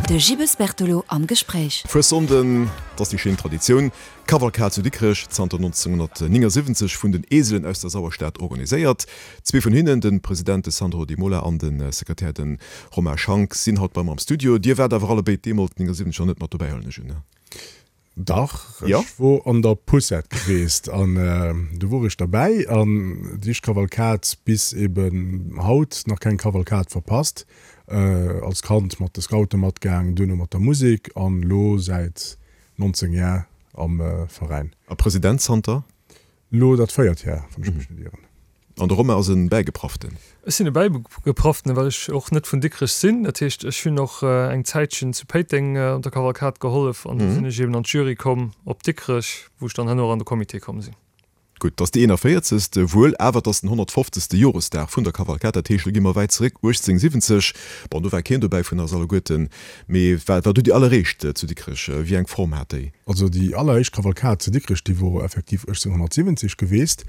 De Gibbes Bertolo am Gespréich. Fuessonden, 't ass déi schéin Traditioun, Kavalkad zu Dikrech, zanter 1979 vun den Eselen aus der Sauerstad organiséiert. Zwee vun hinnen, de President de Sandro Di Mola an de Sekretär de Romain Schank, sinn haut bei mer am Studio. Dir waart awer allebéid deemools 79 nach net mat dobäi, huelen ech un, ne? Dach, ech wor an der Poussette geweest an do wor ech derbäi an déi éischt Kavalkad bis eben haut nach keng Kavalkad verpasst. Als Kand mat de Scoute matgaang, duerno mat der Musek an lo säit 19 Jar am Veräin. A President zanter? Lo dat véiert Jar, wann ech mech net ieren. An de Romain ass e Bäigeprafften. Ech sinn e Bäigeprafften, well ech och net vun Dikrech sinn. Dat heescht, ech hunn och eng Zäitchen zu Péiteng op der Kavalkad gehollef an du sinn ech eben an d'Jury komm op Dikrech, wou ech dann herno och an de Comité komm sinn. Gutt, 't ass déi 41. Wuel, awer 't ass den 150. Joresdag vun der Kavalkad. Dat heescht, lo gi mer wäit zeréck, 1870. Bon, do war keen dobäi vun eis alleguerten, mee war du déi alleréischt zu Dikrech? Wéi eng Form hat déi? Also déi alleréischt Kavalkad zu Dikrech, déi wor effektiv 1870 geweest.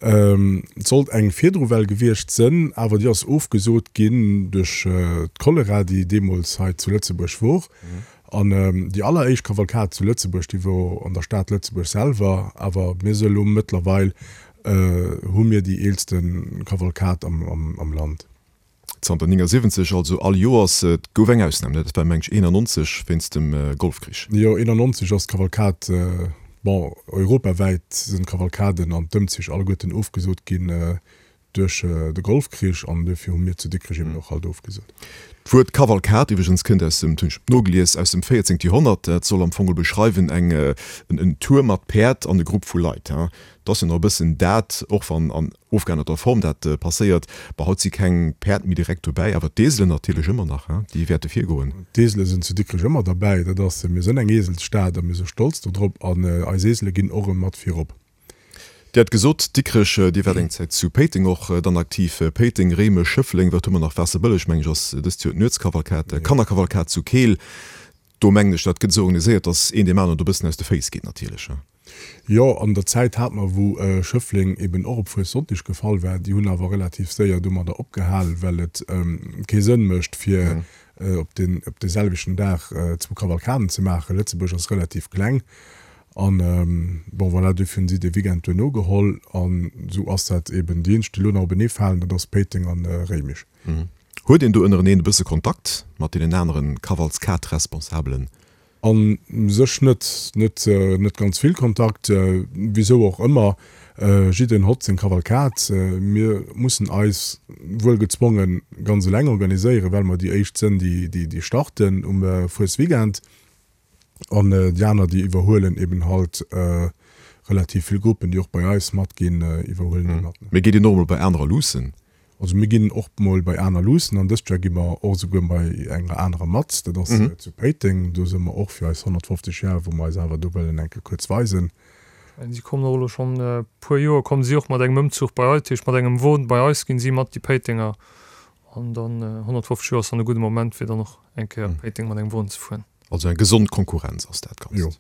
Et sollt eng virdru well gewiescht sënn, awer déi ass ofgesot ginn duerch d'Cholera, déi deemools hei zu Lëtzebuerg wor. An déi alleréischt Kavalkad zu Lëtzebuerg, déi wor an der Stad Lëtzebuerg selwer. Awer mir si elo mëttlerweil hu mir déi eelste Kavalkad am Land. Zanter 79 also all Joers. Et gouf eng Ausnam, ne? Dat war meng ech 91 wéinst dem Golfkrich. Jo, 91 ass d'Kavalkad, bon, europawäit sinn d'Kavalkaden an d'Ëmzich alleguerten ofgesot ginn duerch de Golfkrich an duerfir hu mir zu Dikrech eben och halt ofgesot. D'Wuert Kavalkad iwwregens kënnt aus dem, dat hunn ech nogelies, aus dem 14. Joerhonnert. Dat soll am Fong geholl beschreiwen eng, en Tour mat Päerd an e Grupp vu Leit. Dat ass jo nach e bëssen dat, och wann an ofgeännerter Form dat passéiert. Bon, haut si keng Päerd méi direkt dobäi, awer d'Eselen natierlech ëmmer nach, hein, déi wäerte virgoen. D'Esele sinn zu Dikrech ëmmer derbäi. Dat ass, mir sënn eng Eselsstad a mir si stolz dodrop an eis Esele ginn och erëm mat virop. Dir hat gesot, Dikrech, Dir waart eng Zäit zu Péiteng och dann aktiv. Péiteng, Réimech, Schëffleng, wat hu mer nach? Waasserbëlleg, meng ech, ass dëst Joer d'Nuetskavalkad, Kannerkavalkad zu Keel. Do mengen ech, dat gëtt esou organiséiert, datt een deem aneren do e bëssen aus de Féiss geet natierlech, hein. Jo, an der Zäit hat mer, wou Schëffleng eben och op Fuessonndeg gefall war, déi hunn awer relativ séier domadder opgehal, well et kee Sënn mécht, fir op deen, op dee selwechten Dag zwou Kavalkaden ze maachen. Lëtzebuerg ass relativ kleng an, bon, voilà, duerfir hunn si dee Weekend duerno geholl an esou ass dat eben. Déi eenzeg, déi elo nach openee falen, dat ass Péiteng an Réimech. Huet een do ënnereneen e bësse Kontakt mat deenen aneren Kavalskad-Responsabelen? A sech net, net, net ganz vill Kontakt, wisou och ëmmer. Jiddereen hott seng Kavalkad. Mir mussen eis wuel gezwongen ganz eleng organiséieren, well mer déi éischt sënn, déi, déi starten um Fuesweekend. An déi aner, déi iwwerhuelen eben halt relativ vill Gruppen, déi och bei eis matginn, iwwerhuelen déi mat. Mee geet een och emol bei anerer luussen? Also mir ginn och mol bei aner luussen an dëst Joer gi mer och esouguer bei enger anerer mat, dat ass zu Péiteng. Do si mer och fir eis 150 Jar, wou mer eis awer do wëllen eng Kéier kuerz weisen. Si kommen och elo schonn e puer Joer kommen si och mat engem Ëmzuch bei eis, dat heescht mat engem Won bei eis ginn si mat, déi Péitenger. An dann 150 Joer ass dann e gudde Moment fir dann och eng Kéier op Péiteng mat engem Won ze fueren. Also eng gesond Konkurrenz ass dat Ganzt. Jo.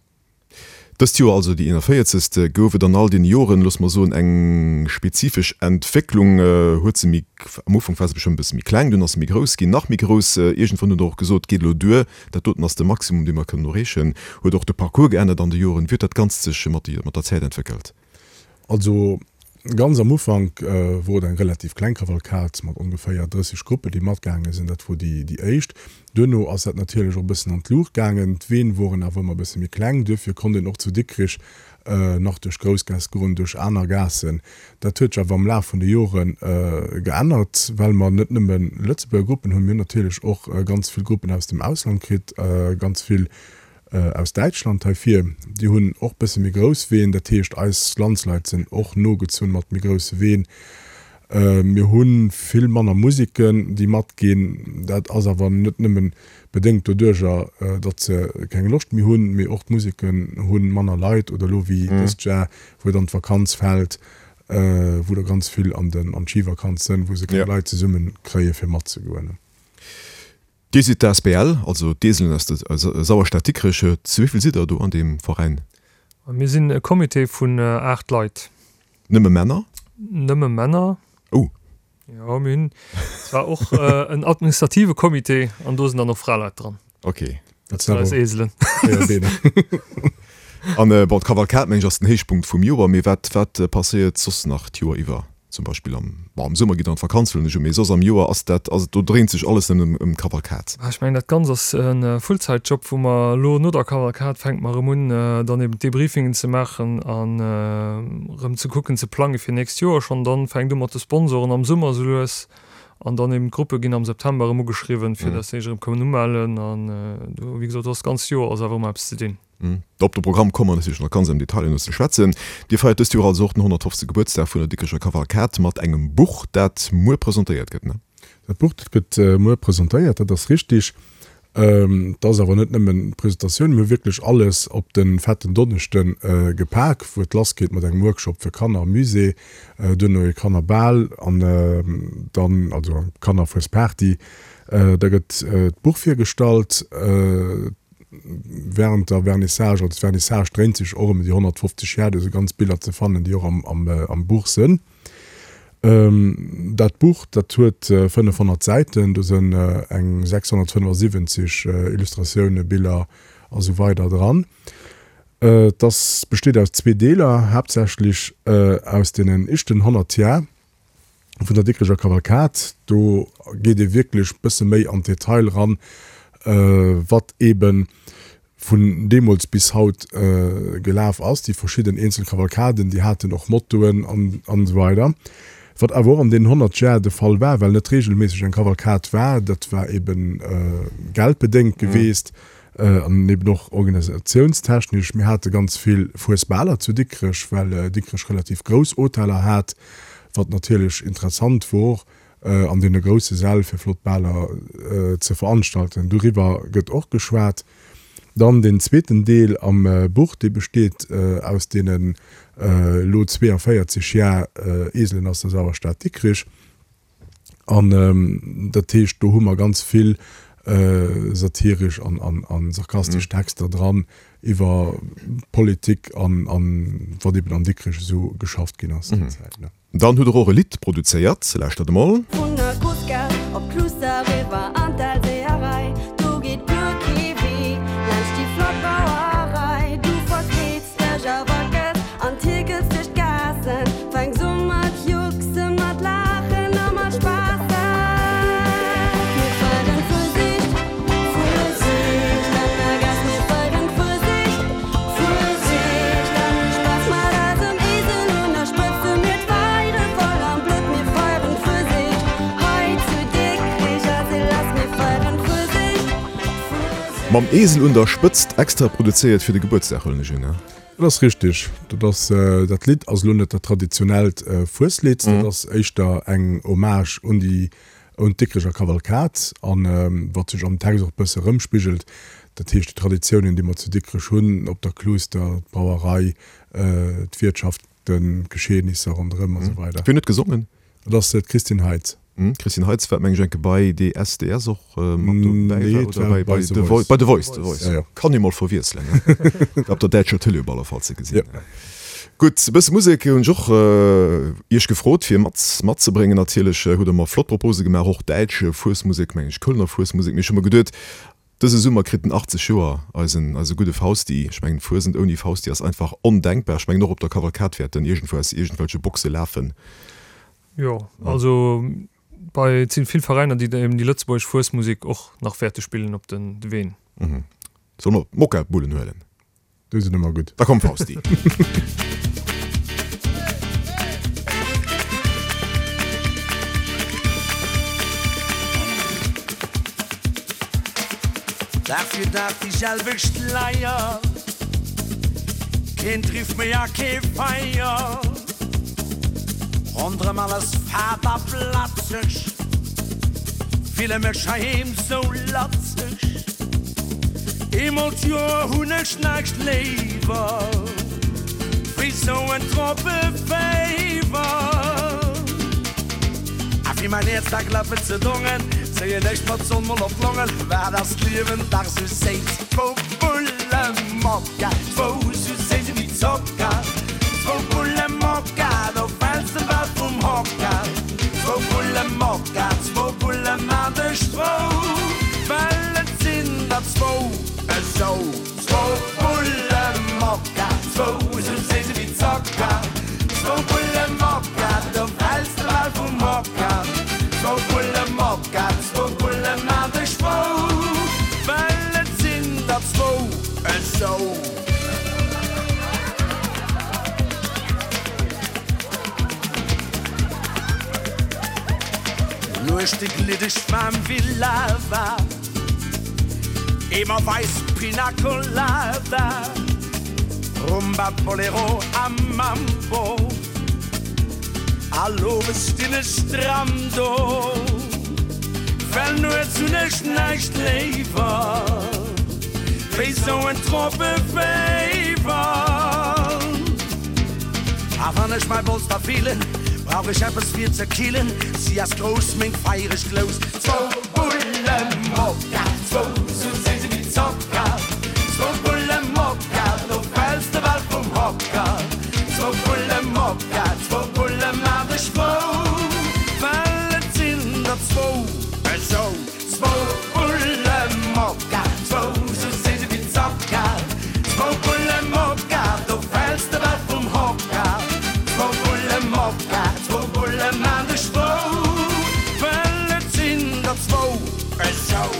Dëst Joer, also déi 41. Gouf et an all deene Joren, loosse mer soen, eng spezifesch Entwécklung. Huet se méi, am Ufank war se bestëmmt e bësse méi kleng, dunn ass se méi grouss ginn, nach méi grouss. Iergendwann hutt Der och gesot, geet elo duer, dat doten ass de Maximum, dee mer kënnen erreechen. Huet och de Parcours geännert an de Joren. Wéi huet dat Ganzt sech mat der Zäit entwéckelt? Also ganz am Ufank wor et eng relativ kleng Kavalkad mat ongeféier 30 Gruppen, déi matgaange sinn. Dat wor déi déi éischt. Duerno ass dat natierlech och e bëssen an d'Luucht gaangen. D'Ween woren awer ëmmer e bësse méi kleng. Duerfir konnt een och zu Dikrich nach duerch d'Groussgaass goen, duerch aner Gaassen. Dat huet sech awer am Laf vun de Jore geännert, well mer net nëmme Lëtzebuerger Gruppen hunn, mir hunn natierlech och ganz vill Gruppen aus dem Ausland kritt, ganz vill aus Däitschland hei vir, déi hunn och bësse méi grouss Ween, dat heescht eis Landsleit sinn och nogezunn mat méi grousse Ween. Mir hu vill manner Musiken, déi matginn. Dat ass awer net nëmme bedéngt doduercher, datt se keng Loscht méi hunn, mee och d'Musiken hu manner Leit oder elo wéi dëst Jar, wou dann d'Vakanz fält, wou der ganz vill an d'Schivakanz sënn, wou se keng Leit zesumme kréie fir matzegoen. Dir sidd d'ASBL, also d'Eselen aus der Sauerstad Dikrech. Zu wéi vill sidd der do an deem Veräin? Mir sinn e Comité vun 8 Leit. Nëmme Männer? Nëmme Männer. Oh. Jo, mir hunn zwar och en administrative Comité an do sinn dann och Fraleit dran. Ok. Dat sinn eis Eselen. An bon, d'Kavalkad meng ech ass den Héichpunkt vum Joer, mee wat wat passéiert soss nach d'Joer iwwer? Zum Beispill am, bon am Summer gitt der an d'Vakanz huelen ech un, mee soss am Joer ass dat, ass et do dréint sech alles nëmmen ëm d'Kavalkad? Ech mengen dat Ganzt ass e Fullzäitjob, wou mer elo no der Kavalkad fänke mer erëm un dann eben d'Debriefingen ze maachen an erëm ze kucken ze plange fir nächst Joer schonn. Dann fänkt u mat de Sponsoren am Summer esou lues An dann eben d'Gruppe ginn am September erëm ugeschriwwen, fir dass se sech erëm kënnen umellen. An do, wéi gesot, do ass d'ganzt Joer ass awer ëmmer eppes ze dinn. Op de Programm komme mer natierlech nach ganz am Detail herno ze schwätzen. Dir feiert dëst Joer also och den 150. Gebuertsdag vun der Dikrecher Kavalkad mat engem Buch, dat muer presentéiert gëtt, ne? Dat Buch, dat gëtt muer presentéiert, dat ass richtig. Et ass awer net nëmmen d'Presentatioun, mir hu wierklech alles op de fetten Donneschde gepak, wou et lassgeet mat engem Workshop fir Kanner am Musée, duerno e Kannerbal an dann, also eng Kannerfuesparty. Da gëtt d'Buch virgestallt wärend der Vernissage. Also d'Vernissage dréint sech och ëm déi 150 Jar, do si ganz Biller ze fannen, déi och am Buch sënn. Dat Buch, dat huet 500 Säiten, do sënn eng 675 Illustratioune, Biller a sou weider dran. Et ass, besteet aus zwee Deeler, haaptsächlech aus deenen éischten 100 Jar vun der Dikrecher Kavalkad. Do geet ee wierklech bësse méi an d'Detail ran, wat eeben vun deemools bis haut gelaf ass. Déi verschidden eenzel Kavalkaden, déi haten och Mottoen an esou weider. Wat awer och an deenen 100 Jar de Fall war, well net regelméisseg eng Kavalkad war, dat war eebe geldbedéngt geweest an eeben och organisatiounstechnesch. Mir hate ganz vill Fuesbaler zu Dikrech, well Dikrech relativ grouss Hoteller hat, wat natierlech interessant wor. an deene grousse Säll fir flott Baler ze veranstalten. Doriwwer gëtt och geschwat. Dann deen zweeten Deel am Buch, dee besteet aus deenen elo 42 Jar Eselen aus der Sauerstad Dikrich. An dat heescht, do hu mer ganz vill satiresch an sarkastesch Texter dran iwwer Politik an wat eben an Dikrech esou geschafft ginn ass déi Zäit. Dann hutt der och e Lidd produzéiert, lauschtert emol. Vun der Grussgaass op d'Cluster eriwwer an d'Elseeërei, do geet guer kee Wee laanscht déi flott Brauerei. Du verkleeds dech a wackels an tierkels duerch d'Gaassen, fänks u mat jucksen, mat laachen a mat spaassen. Mir feieren Fuesicht, Fuesicht an der Gaass, mir feieren Fuesicht. Mam Esel un der Spëtzt, extra produzéiert fir de Gebuertsdag, huelen ech un, ne? Dat ass richteg. Dat ass, dat Lidd ass elo net dat traditionellt Fueslidd, dat ass éischter eng Hommage un déi Un d'Dikrecher Kavalkad, an wat sech am Text och e bësse erëmspigelt, dat heescht déi Traditiounen, déi mer zu Dikrech hunn, op der Kluuster, d'Brauerei, d'Wiertschaften, d'Geschehnisser ronderëm a sou weider. Wien huet gesongen? Dat ass d'Christine Heitz. D'Christine Heitz war, meng ech, enke bei DSDS och mat dobäi war, oder bei The Voice? Bei The Voice, The Voice. Kann ee mol verwiesselen, ne? War op der däitscher Tëlee op alle Fall ze gesinn. Gutt, e bësse Musek hunn ech och Iech gefrot fir mat matzebréngen. Natierlech hutt Der mer flott Propose gemaach, och däitsch Fuesmusek, meng ech, Kölner Fuesmusek. Mee ech hu mer geduet, dëse Summer kritt en 80 Joer, eisen, eise gudde Fausti. Ech mengen, Fuesent ouni Fausti ass einfach ondenkbar. Ech mengen, och op der Kavalkad wäert en iergendwou aus iergendwelche Boxe lafen. Jo, also bei, et sinn vill Veräiner, déi eben déi lëtzebuergesch Fuesmusek och nach wäerte spillen op den Ween. Solle mer d'Mokka-Bullen huelen? Déi sinn ëmmer gutt. Da komm Fausti. Dag fir Dag déi selwecht Leier, keen Driff méi a kee Feier. Ronderëm alles fad a blatzeg, fille mech heiheem sou latzeg. Eemol d'Joer hunn ech näischt léiwer wéi sou en Tropeféiwer. A fir mäin Häerz da klappen ze dongen, zéien ech mer d'Sonn mol op d'Longen. Wat ass d'Liewen dach sou séiss, zwou Bulle Mokka, zwou sou séiss ewéi Zocker, zwou Bulle Mokka, do fäls de bal vum Hocker, zwou Bulle Mokka, zwou Bulle maan dech frou, well et sinn der. Esou. Nuechte gliddeg waarm wéi Lava, Eemer wäiss Pina Colada, Rumba, Bolero a Mambo. All owes stinn ech stramm do, well nuets hunn ech näischt léiwer wéi sou en Tropeféiwer. A wann ech mäi Bolster feelen, brauch ech eppes fir ze killen, si ass grouss, meng feiereg Glous. Zwou Bulle Mokka, zwou sou séi si wéi Zocker, zwou Bulle Mokka, do fäls de bal vum Hocker. Zwou Bulle Mokka, zwou Bulle maan dech frou, well et sinn der zwou esou. Zwou Bulle Mokka, zwou sou séi si wéi Zocker, zwou Bulle Mokka, do fäls de bal vum Hocker. Zwou Bulle Mokka, zwou Bulle maan dech frou, well et sinn der zwou esou.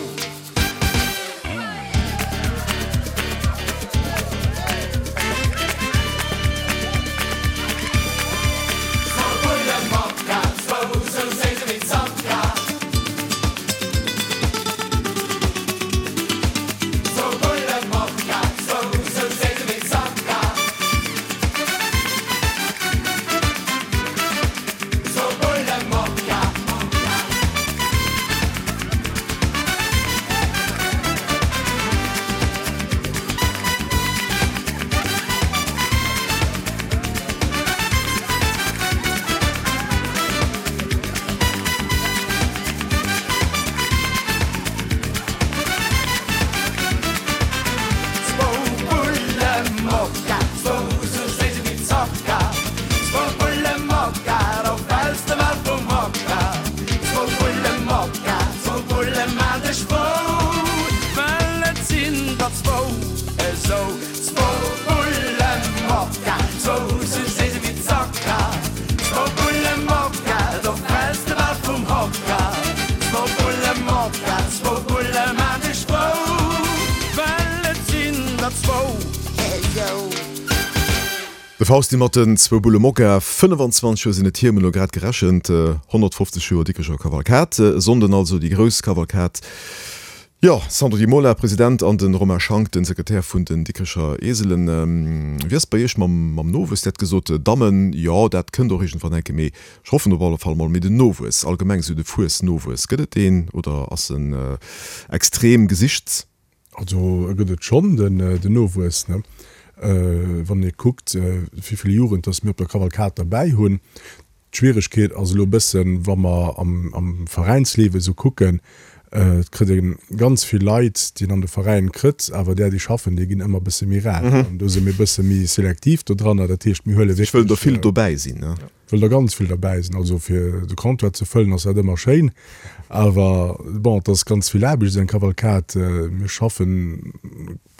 De Fausti mat den zwou Bulle Mokka, 25 Joer sinn et hier, mir hunn elo grad gerechent, 150 Joer Dikrecher Kavalkad, e Sonnden also déi grouss Kavalkad. Jo, Sandro Di Mola, President, an de Romain Schank, den Sekretär vun den Dikrecher Eselen. Wéi ass et bei Iech mam mam Nowuess? Dir hat gesot, Dammen, jo, dat kënnt och iergendwann enke, mee ech hoffen op alle Fall mol. Mee den Nowuess, allgemeng esou de Fuesnowuess, gëtt et deen oder ass en extrem gesicht? Also e gëtt et schonn, den Nowuess, ne? Wann ee kuckt, wéi vill Jugend dass mir op der Kavalkad derbäi hunn. D'Schwieregkeet ass elo e bëssen, wa mer am Veräinsliewe esou kucken, et kritt ee ganz vill Leit, déi een an de Veräin kritt, awer där, déi schaffen, déi ginn ëmmer e bësse méi rar. An do si mir e bësse méi selektiv dodranner. Dat heescht, mir huele wierklech. Ech wëllen der vill dobäi sinn, ne? Wëll der ganz vill derbäi sinn. Also fir de Comptoir ze fëllen ass dat ëmmer schéin, awer bon, et ass ganz vill Aarbecht, esou eng Kavalkad. Mir schaffen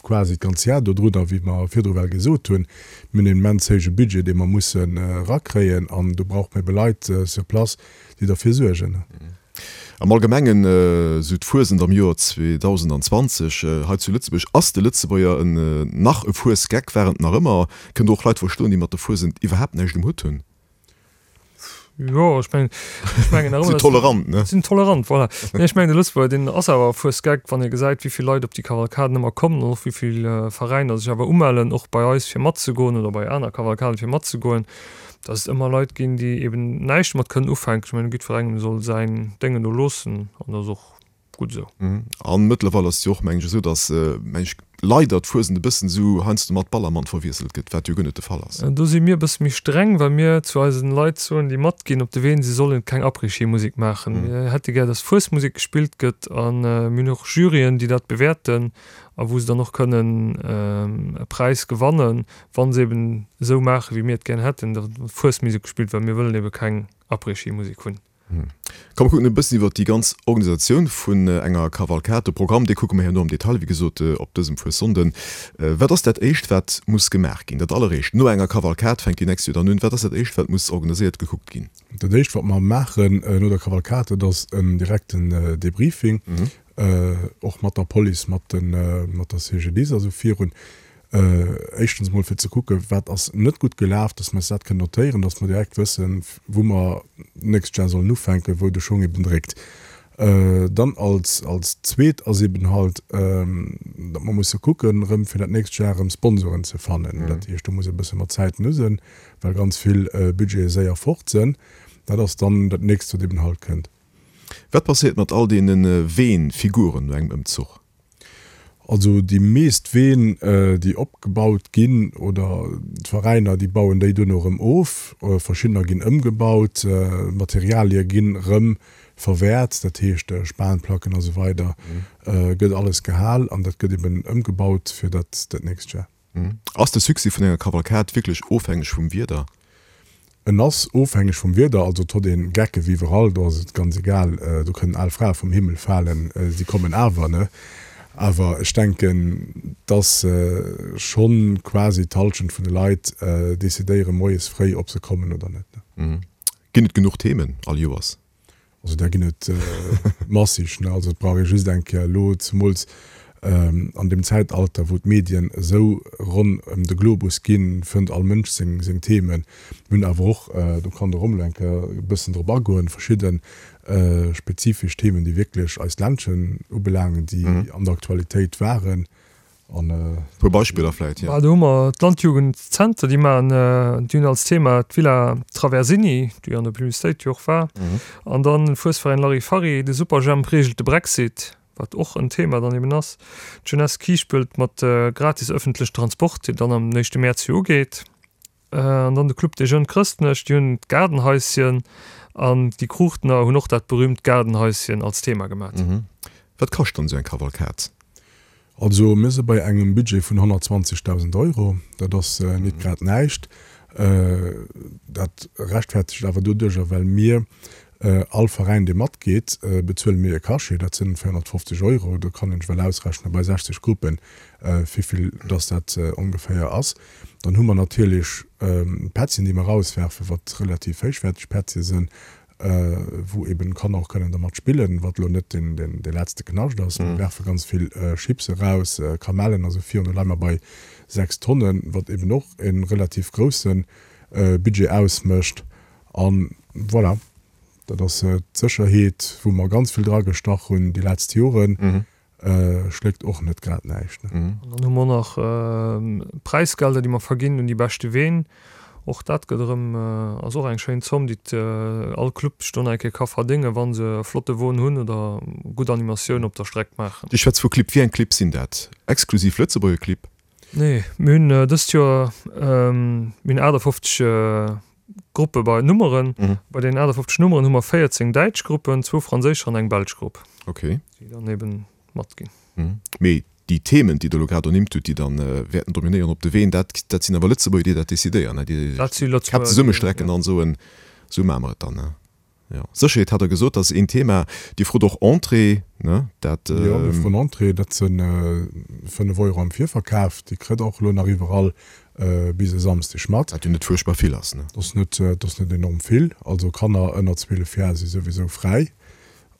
quasi d'ganz Jar dodrunner, wéi mer virdru well gesot hunn. Mir hunn en immens héije Budget, dee mer mussen erakréien, an do brauche mer ebe Leit sur place, déi derfir suergen. Am Allgemengen, esou d'Fuesent am Joer 2020 hei zu Lëtzebuerg, ass de Lëtzebuerger en nach e Fuesgeck, war en et nach ëmmer? Kënnt Der och Leit verstoen, déi mat der Fuesent iwwerhaapt näischt um Hutt hunn? Jo, ech mengen, ech mengen nach ëmmer, Sinn tolerant, ne? Sinn tolerant, voilà. Nee, ech mengen de Lëtzebuerger, deen ass awer e Fuesgeck, wann ee gesäit, wéi vill Leit op déi Kavalkaden ëmmer kommen an och wéi vill Veräiner sech awer umellen, och bei eis fir matzegoen oder bei aner Kavalkaden fir matzegoen, dass et ëmmer Leit ginn, déi eben näischt domat kënnen ufänken. Ech mengen, jiddwerengem soll säin Déngen do loossen an dat ass och gutt esou. A mëttlerweil ass et jo och, meng ech, esou, datt, meng ech, leider d'Fuesent e bëssen esou heiansdo mat Ballermann verwiesselt gëtt, wat jo guer net de Fall ass. Do si mir e bësse méi streng, well mir zu eisen Leit soen, déi matginn op de Ween, si sollen keng Après-Ski-Musek maachen. Mir hätte gär, datt Fuesmusek gespillt gëtt a mir hunn och Juryen, déi dat bewäerten a wou se dann och kënnen e Präis gewannen, wa se eben esou maachen, wéi mir et gär hätten, datt Fuesmusek gespillt, well mir wëllen ebe keng Après-Ski-Musek hunn. Komm mer kucken e bëssen iwwert déi ganz Organisatioun vun enger Kavalkad. De Programm, dee kucke mer herno am Detail, wéi gesot, op dësem Fuessonnden. Wat ass dat Éischt, wat muss gemaach ginn? Dat Alleréischt no enger Kavalkad fänkt déi nächst jo dann un. Wat ass dat Éischt, wat muss organiséiert, gekuckt ginn? Dat Éischt, wat mer maachen no der Kavalkad, dat ass en direkten Debriefing, och mat der Police, mat der CGDIS, also virun. Éischtens emol fir ze kucken, wat ass net gutt gelaf, dass mer eis dat kënnen notéieren, dass mer direkt wëssen, wou mer d'nächst Jar sollen ufänken, wou de Schong eben dréckt. Dann als als zweet ass eben halt, datt mer musse kucken, erëm fir dat nächst Jar erëm Sponsoren ze fannen. Dat heescht, do muss e bësse mat Zäiten u sinn, well ganz vill Budgete séier fort sinn. Dat ass dann dat nächst, wat eben halt kënnt. Wat passéiert mat all deene Ween-Figuren no engem Ëmzuch? Also déi meest Ween, déi opgebaut ginn, oder d'Veräiner, déi bauen déi duerno erëm of. Verschiddener ginn ëmgebaut, Materialie ginn erëm verwäert, dat heescht Spanplacken a sou weider gëtt alles gehal an dat gëtt eben ëmgebaut fir dat nächst Jar. Ass de Succès vun enger Kavalkad wierklech ofhängeg vum Wieder? En ass ofhängeg vum Wieder, also et hott een Gecke wéi iwwerall, do ass et ganz egal, do kënnen al Frae vum Himmel falen, si kommen awer, ne? Awer ech denken, dass schonn quasi d'Halschent vun de Leit decidéiere moies fréi, ob se kommen oder net, ne? Ginn et genuch Themen all Joers? Also där ginn et massig. Ne? Also et brauch ee just eng Kéier elo, zemools an deem Zäitalter, wou d'Medien esou ronn ëm de Globus ginn, fënnt all Mënsch seng, seng Themen. Mir hunn awer och, do kann de Rommel eng Kéier e bëssen drop agoen, verschidde spezifesch Themen, déi wierklech eist Ländchen ubelaangen, déi an der Aktualitéit waren. An e puer Beispiller vläit, jo. Do hu mer d'Landjugendzenter, déi maachen, déi hunn als Thema d'Villa Traversini, déi an der Publicitéit jo och war. An dann de Fuesveräin Larifari, de Superjhemp reegelt de Brexit, wat och en Thema dann eben ass. D'Jeunesse Kiischpelt mat gratis ëffentlechen Transport, deen dann am éischte Mäerz jo ugeet. An dann de Club des Jeunes Chrëstnech, déi hunn d'Gaardenhaischen an déi Kruuchtener hunn och dat berühmt Gaardenhaischen als Thema gemat. Wat kascht dann esou eng Kavalkad? Also mir si bei engem Budget vun 120.000 Euro. Dat ass nit grad näischt. Dat rechtfertegt awer doduercher, well mir all Veräin, dee matgeet, bezuele mir e Cachet, dat sinn 450 Euro. Do kann een sech well ausrechnen bei 60 Gruppen, wéivill dass dat ongeféier ass. Dann hu mer natierlech d'Pättchen, déi mer erauswerfen, wat relativ héichwäerteg Pättche sinn, wou eben d'Kanner och kënnen dermat spillen, wat elo net dee letzte Knascht ass. Mir werfe ganz vill Chips eraus, Kamellen a sou virun. Do leie mer bei 6 Tonnen, wat eben och e relativ grousse Budget ausmécht. A voilà, dat ass d'Sécherheet, wou mer ganz vill dragestach hunn déi letzt Joren. Schléckt och net grad näischt, ne? An dann hu mer och nach Präisgelder, déi mer verginn un déi beschte Ween. Och dat gëtt erëm, ass och eng schéin Zomm, déi all Club sech do nach eng Kéier ka verdéngen, wa se e flotte Won hunn oder gutt Animatioun op der Streck maachen. Dir schwätzt vu Clibb. Wéi eng Clibb sinn dat? Exklusiv Lëtzebuerger Clibb? Nee, mir hunn dëst Joer, mir hunn 58 Gruppe bei Nummeren. Bei deenen 58 Nummeren hu mer 14 däitsch Gruppen, zwou franséischer an eng belsch Grupp. Okay. Déi dann eben matginn. Mee déi Themen, déi Der elo grad ernimmt hutt, déi dann wäerten dominéieren op de Ween, dat, dat sinn awer Lëtzebuerger, déi dat decidéieren, ne? Déi Dat si Lëtzebuerger, d'Käpp zesummestrecken an soen, esou maache mer et dann, ne? Jo, Sécherheet hat Der gesot, dat ass een Thema. Dir frot och Entrée, ne? Dat. Jo, mir froen Entrée, dat si 5 Euro am Virverkaf. Déi kritt Der och elo nach iwwerall bis e Samsdeg mat. Wat jo net fuerchtbar vill ass, ne? Dat ass net, dat ass net enorm vill. Also Kanner ënner 12 Jar si souwisou fräi.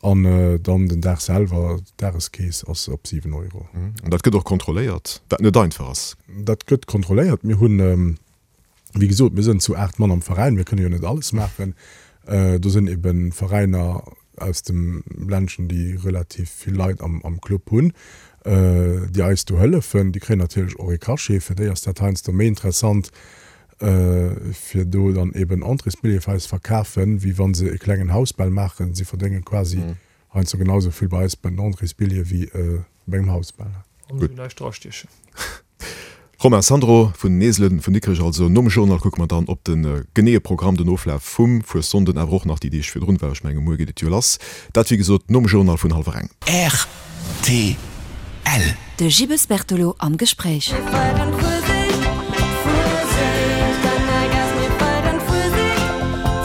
An dann den Dag selwer, d'Dageskeess ass op 7 Euro. An dat gëtt och kontrolléiert, wat net einfach ass. Dat gëtt kontrolléiert. Mir hunn. Wéi gesot, mir sënn zu 8 Mann am Veräin, mir kënne jo net alles maachen. Do sënn eben Veräiner aus dem Ländchen, déi relativ vill Leit am Club hunn, déi eis do hëllefen. Déi kréien natierlech och ee Cachet. Fir déi ass dat heiansdo méi interessant, fir do dann eben Entréesbillete fir eis verkafen, wéi wa se e klengen Hausbal maachen. Si verdénge quasi heiansdo genau esou vill bei eis bei den Entréesbillete wéi bei engem Hausbal. An esou näischt drastiechen. Romain Sandro vun den Eselen vun Dikrech also. Nom Journal kucke mer dann op de geneeë Programm, den Oflaf vum Fuessonden, awer och nach déi Deeg virdrun, well ech menge muer geet et jo lass. Dat wéi gesot nom Journal vun hallwer eng. Rtl. De Gibbes Bertolo am Gespréich. Mir feieren Fuesicht, Fuesicht an der Gaass. Mir feieren Fuesicht,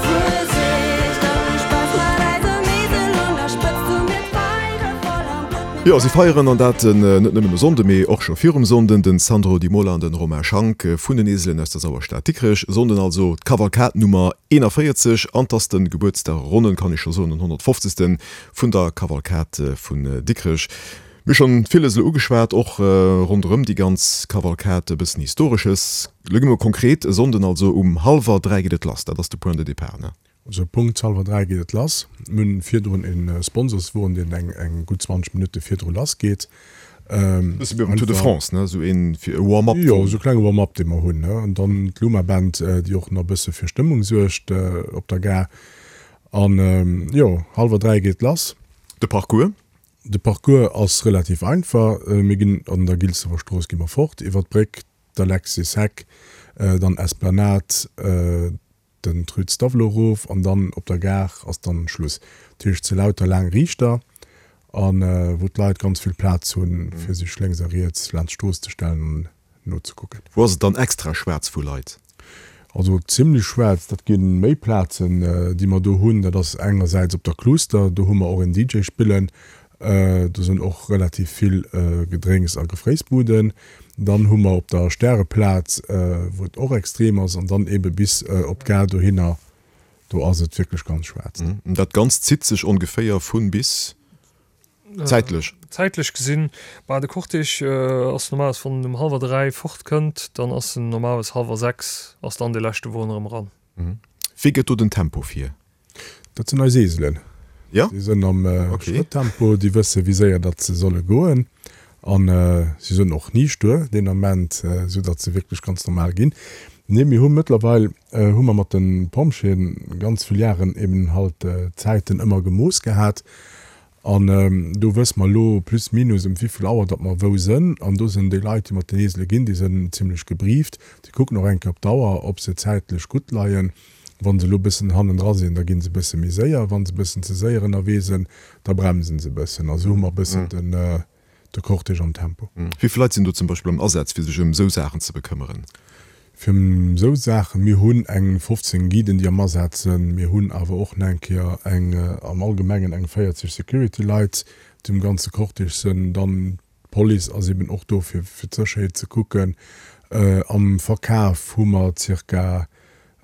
Fuesicht an hu Spaass mat eisem Esel un der Spëtzt. Hu mir d'Feiere voll am Blutt. Jo, si feieren, an dat net nëmmen e Sonnde, mee och scho virum Sonnden, den Sandro Di Mola an den Romain Schank vun den Eselen aus der Sauerstad Dikrech. Sonnden also d'Kavalkad Nummer 41 an 't ass den Gebuertsdag, ronnen kann ech scho soen, den 150. Vun der Kavalkad vun Dikrech. Mir hu schonn villes elo ugeschwat, och ronderëm déi ganz Kavalkad, e bëssen Historesches. Elo gi mer konkret, E Sonnden also um hallwer 3 geet et lass, dat ass de Point de départ, ne? Also Punkt hallwer 3 geet et lass. Mir hunn virdrun e Sponsorswon, deen eng gutt 20 Minutte virdru lass geet. Bësse wéi beim Tour de France, ne? Esou een fir e Warm-up. Jo, esou e klenge Warm-up, dee mer hunn, ne? An dann d'Luma Band, déi och nach e bësse fir Stëmmung suergt op der Gare. An jo, hallwer 3 geet lass. De Parcours? De Parcours ass relativ einfach. Mir ginn an der Gilsewer Strooss gi mer fort, iwwer d'Bréck, d'Alexis Heck, dann Esplanade, den Rue Stavelot erof an dann op der Gare ass dann Schluss. Dat heescht, et si lauter laang Riichter a wou d'Leit ganz vill Plaz hunn, fir sech lénks a riets laanscht d'Strooss ze stellen an nozekucken. Wou ass et dann extra schwaarz vu Leit? Also zimlech schwaarz, dat gi méi Plazen, déi mer do hunn. Dat ass engersäits op der Kluster, do hu mer och en DJ spillen. Do sinn och relativ vill Gedrénks a Gefréissbuden. Dann hu mer op der Stäreplaz, wou et och extrem ass, an dann eebe bis op d'Gare dohinner, do ass et wierklech ganz schwaarz. Dat Ganzt zitt sech ongeféier vun bis, zäitlech? Zäitlech gesinn, bah de Cortège ass normalerweis, wann en um hallwer 3 fort kënnt, dann ass en normalerweis hallwer 6 ass dann dee leschte Won erëm eran. Wéi gëtt do den Tempo vir? Dat sinn eis Eselen. Ja? Déi sënn am Schrëttempo, déi wësse wéi séier datt se solle goen an si sënn och ni stuer deen Ament, esou datt se wierklech ganz normal ginn. Nee, mir hu mëttlerweil hu mer mat de Pompjeeën ganz vill Jaren eben halt d'Zäiten ëmmer gemooss gehat An do wësse mer elo plus minus ëm wéivill Auer datt mer wou sënn. An do sënn déi Leit, déi mat den Esele ginn, déi sënn zimlech gebrieft. Déi kucken och eng Kéier op d'Auer, ob se zäitlech gutt leien. Wa se elo e bëssen hannendra sinn, da gi se e bësse méi séier. Wa se e bëssen ze séier ënnerwee sënn, da bremsen se e bëssen. A sou hu mer e bëssen den, de Cortège am Tempo. Wéi vill Leit sinn do zum Beispill am Asaz, fir sech ëm esou Saachen ze bekëmmeren? Fir ëm esou Saachen? Mir hunn eng 15 Guiden, déi am Asaz sinn. Mir hunn awer och nach eng Kéier eng, am Allgemengen eng 40 Security-Leit, déi um ganze Cortège sinn. Dann d'Police ass eben och do, fir fir d'Sécherheet ze kucken. Am Verkaf hu mer zirka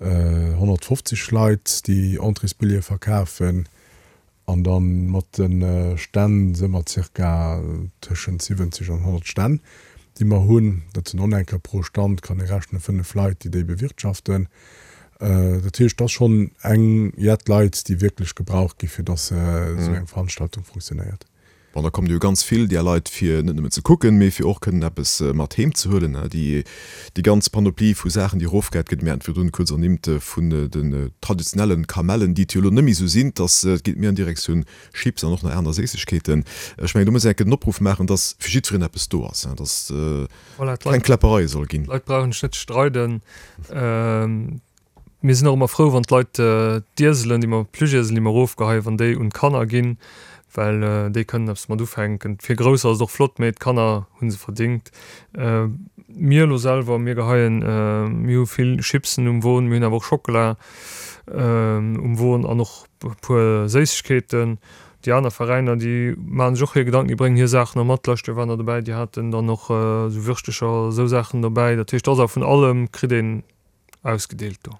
150 Leit, déi Entréesbillete verkafen. An da mat de Stänn si mer zirka tëschent 70 an 100 Stänn, déi mer hunn. Dat sinn och nach eng Kéier pro Stand, kann ee rechnen, 5 Leit, déi déi bewirtschaften. Dat heescht, et ass schonn eng jett Leit, déi wierklech gebraucht gi fir datt esou eng Veranstaltung funktionéiert. Bon, da kommen jo ganz vill där Leit, fir net nëmmen ze kucken, mee fir och kënnen eppes mat heem ze huelen. Déi, déi ganz Panoplie vu Saachen, déi erofgehäit gëtt, mir haten virdrun kuerz ernimmt vun den traditionellen Kamellen, déi et jo elo net méi esou sinn, dass et geet méi an Direktioun Chips an och nach aner Séissegkeeten. Ech mengen, do muss een enke den Opruff maachen, dass fir jiddwereen eppes do ass, dass keng Kläppereie soll ginn. D'Leit brauchen sech net ze streiden. Mir sinn och ëmmer frou, wann d'Leit d'Ieselen, déi mer, d'Plüschieselen, déi mer erofgeheien, wann déi un d'Kanner ginn, well déi kënnen eppes mat ufänken. Fir Grousser ass et och flott, mee d'Kanner hu se verdingt. Mir elo selwer, mir geheien, mir hu vill Chipsen um Won, mir hunn awer och Schockela um Won an och e puer Séissegkeeten. Déi aner Veräiner, déi maachen sech och hir Gedanken, déi bréngen hir Saachen och mat. D'lescht Joer waren der dobäi, déi haten dann och esou Würschtecher, esou Saachen dobäi. Dat heescht, et ass awer vun allem kritt een ausgedeelt do.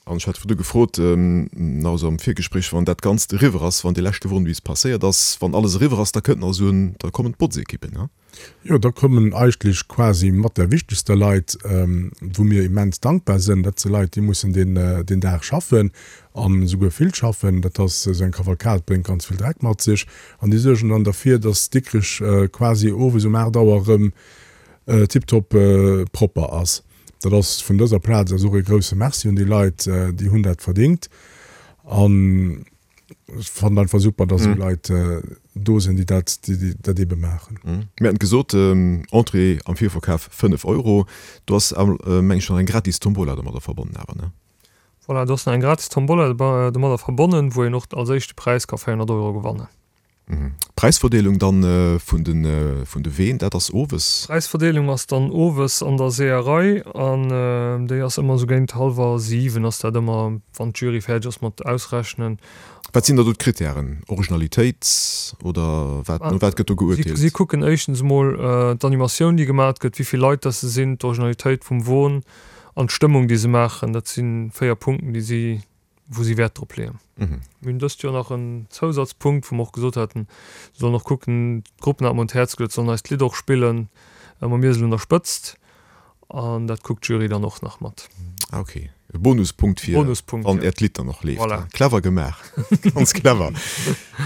An ech hat virdu gefrot, nach esou am Virgespréich, wann dat Ganzt eriwwer ass, wann dee leschte Won bis passéiert ass, wann alles eriwwer ass, da kënnt nach esou en, da kommen d'Botzekippen, ne? Jo, da kommen eigentlech quasi mat der wichtegster Leit, wou mir immens dankbar sënn. Dat si Leit, déi mussen deen, deen Dag schaffen an esouguer vill schaffen. Dat ass, esou eng Kavalkad bréngt ganz vill Dreck mat sech. An déi suergen dann derfir, dass Dikrech quasi owes um 8 Auer erëm tiptop propper ass. Dat ass vun dëser Plaz aus och ee grousse Merci un déi Leit, déi hunn dat verdingt. An ech fannen einfach super, dass esou Leit do sinn, déi dat, déi dat eebe maachen. Mir haten gesot, Entrée am Virverkaf 5 Euro. Do ass, meng ech, nach eng gratis Tombola domadder verbonnen awer, ne? Voilà, do ass nach eng gratis Tombola domadder verbonnen, wou een och als éischte Präis ka 400 Euro gewannen. D'Präisverdeelung dann vun de vun de Ween, dat ass owes? D'Präisverdeelung ass dann owes an der Seeërei an déi ass ëmmer esou géint hallwer 7 ass dat ëmmer, wann d'Jury fäerdeg ass mat ausrechnen. Wat sinn da do d'Krittären? Originalitéit oder wat, no wat gëtt do geuerteelt? Si kucken éischtens emol d'Animatioun déi gemat gëtt, wéi vill Leit dass se sinn, d'Originalitéit vum Won an d'Stëmmung déi se maachen. Dat si 4 Punkten déi si. wou si Wäert drop leeën. Mir hunn dëst Joer nach en Zousatzpunkt, wou mer och gesot haten, se sollen och kucken, d'Gruppen hat mer un d'Häerz geluet, sollen eis d'Lidd och spillen, mam Iesel un der Spëtzt. An dat kuckt d'Jury dann och nach mat. Ah ok, e Bonuspunkt fir Bonuspunkt, wann ja. Äert Lidd dann och leeft. Voilà. Clever gemaach, ganz clever.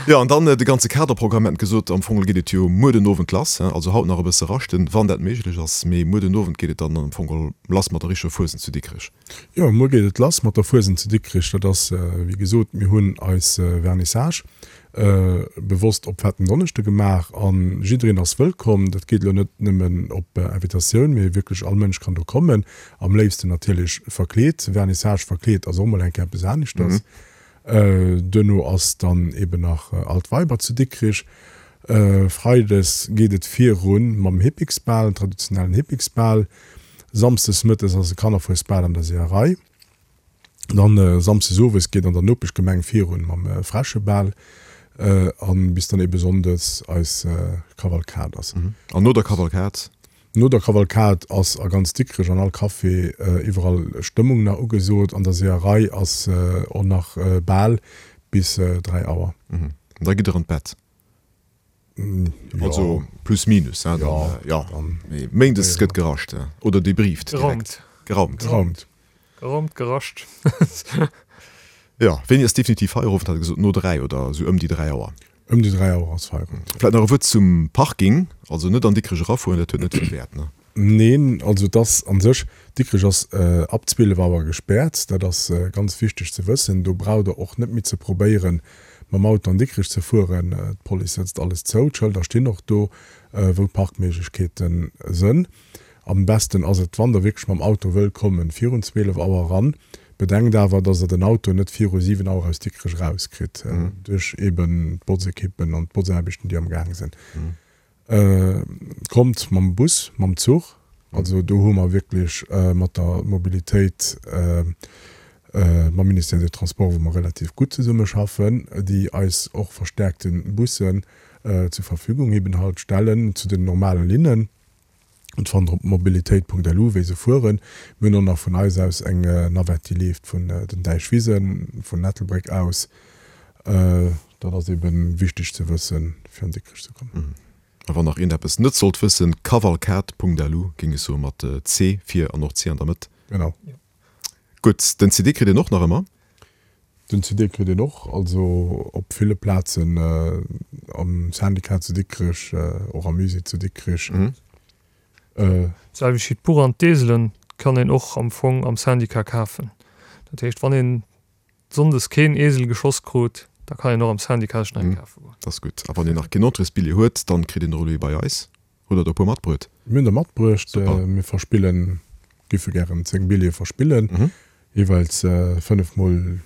Jo, an dann de ganze Kaderprogramm, mir haten gesot, am Fong geet et jo muer den Owend lass, also haut nach e bësse raschten, wann dat méiglech ass, mee muer den Owend geet et dann am Fong lass mat der richteger Fuesent zu Dikrech. Jo, muer geet et lass mat der Fuesent zu Dikrech. Dat ass, wéi gesot, mir hunn eis Vernissage bewosst op Fetten Donneschde gemaach a jiddereen ass wëllkomm. Dat geet elo net nëmmen op Invitatioun, mee wierklech all Mënsch kann do kommen. Am léifsten natierlech verkleet. Vernissage verkleet ass och mol eng Kéier eppes aneschters. Duerno ass dann eben nach Altweiber zu Dikrich. Freides geet et virun mam Hippiksbal, traditionellen Hippiksbal. Samsdes mëttes ass e Kannerfuesbal an der Seeërei. Dann Samsdes owes geet an der Nopeschgemeng virun mam Fräschebal an bis dann eben Sonndes eis Kavalkad ass. An no der Kavalkad? No der Kavalkad ass a ganz Dikrech an all Café iwwerall Stëmmung nach ugesot. An der Seeërei ass och nach Bal bis 3 Auer. An da gitt der an d'Bett? Also plus minus, hein, dann, jo. Mee méindes gëtt gerascht oder debrieft direkt. Geraumt. Geraumt. Geraumt, gerascht. Jo, wéini ass definitiv Feierowend, hat e gesot? No 3 oder esou ëm déi 3 Auer? Ëm déi 3 Auer ass Feierowend. Vläit nach e Wuert zum Parking, also net an Dikrech erafueren, dat huet net vill Wäert, ne? Neen, also et ass an sech, Dikrech ass ab 12 Auer gespäert, dat ass ganz wichteg ze wëssen. Do braucht der och net méi ze probéieren, mam Auto an Dikrech ze fueren. D'Police sëtzt alles zou, d'Schëlder stinn och do, wou d'Parkméiglechkeete sënn. Am besten ass et, wann der wierklech mam Auto wëllt kommen, virun 12 Auer eran. Bedenkt awer, dass der den Auto net viru 7 Auer aus Dikrech erauskritt, duerch eben d'Botzekippen an d'Botzaarbechten, déi am Gaang sinn. Kommt mam Bus, mam Zuch. Also do hu mer wierklech mat der Mobilitéit, mam Ministère des Transports, wou mer relativ gutt zesummeschaffen, déi eis och verstärkte Bussen zur Verfügung eben halt stellen zu den normale Linnen. Et fannt der op mobilitéit.lu wéi se fueren. Mir hunn och nach vun eis aus eng Navette déi leeft vun den Däichwisen, vun Ettelbréck aus. Dat ass eben wichteg ze wëssen fir an Dikrech ze kommen. A wann nach een eppes net sollt wëssen, cavalcade.lu géing ech soen, mat C vir an och C an der Mëtt. Genau. Gutt, den CD kritt een och nach ëmmer. Den CD kritt een och, also op ville Plazen, am Syndicat zu Dikrech, och am Musée zu Dikrech. D'selwecht wéi d'Buch an d'Eselen kann een och am Fong am Syndicat kafen. Dat heescht, wann een sonndes keen Esel geschoss krut, da kann een och am Syndicat sech nach ee kafe goen. Dat ass gutt. A wann een nach keen Entréesbilljee huet, dann kritt een och elo ee bei eis. Hutt der der e puer matbruet? Mir hunn der matbruecht. Super. Mir verspillen, giffe gären 10 Billjeeë verspillen. Jeeweils 5 mol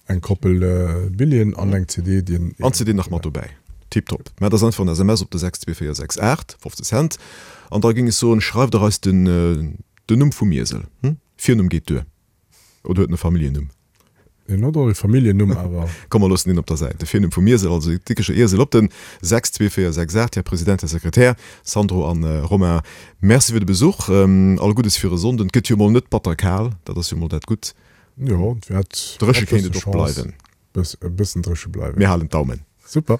eng Koppel Billjeeën an eng CD, déi een. An d'CD nach mat dobäi. Tiptop. Mä dat ass einfach en SMS op de 62468, 15 Cent. An da géing ech soen, schreift der eis den den Numm vum Iesel. Hm? Virnumm geet duer. Oder huet en e Familljennumm? Hien huet och e Familljennumm, awer. Komm, mer loossen deen op der Säit. De Virnumm vum Iesel, also de Dikrecher Iesel, op den 62468. Här President, Här Sekretär, Sandro an Romain, Merci fir de Besuch. All Guddes fir e Sonnden. Et gëtt jo mol net batter kal, dat ass jo mol dat Gutt. Jo, et wäert Dréche kéint et och bleiwen. E bëssen dréche bleiwen. Mir halen d'Daumen. Super.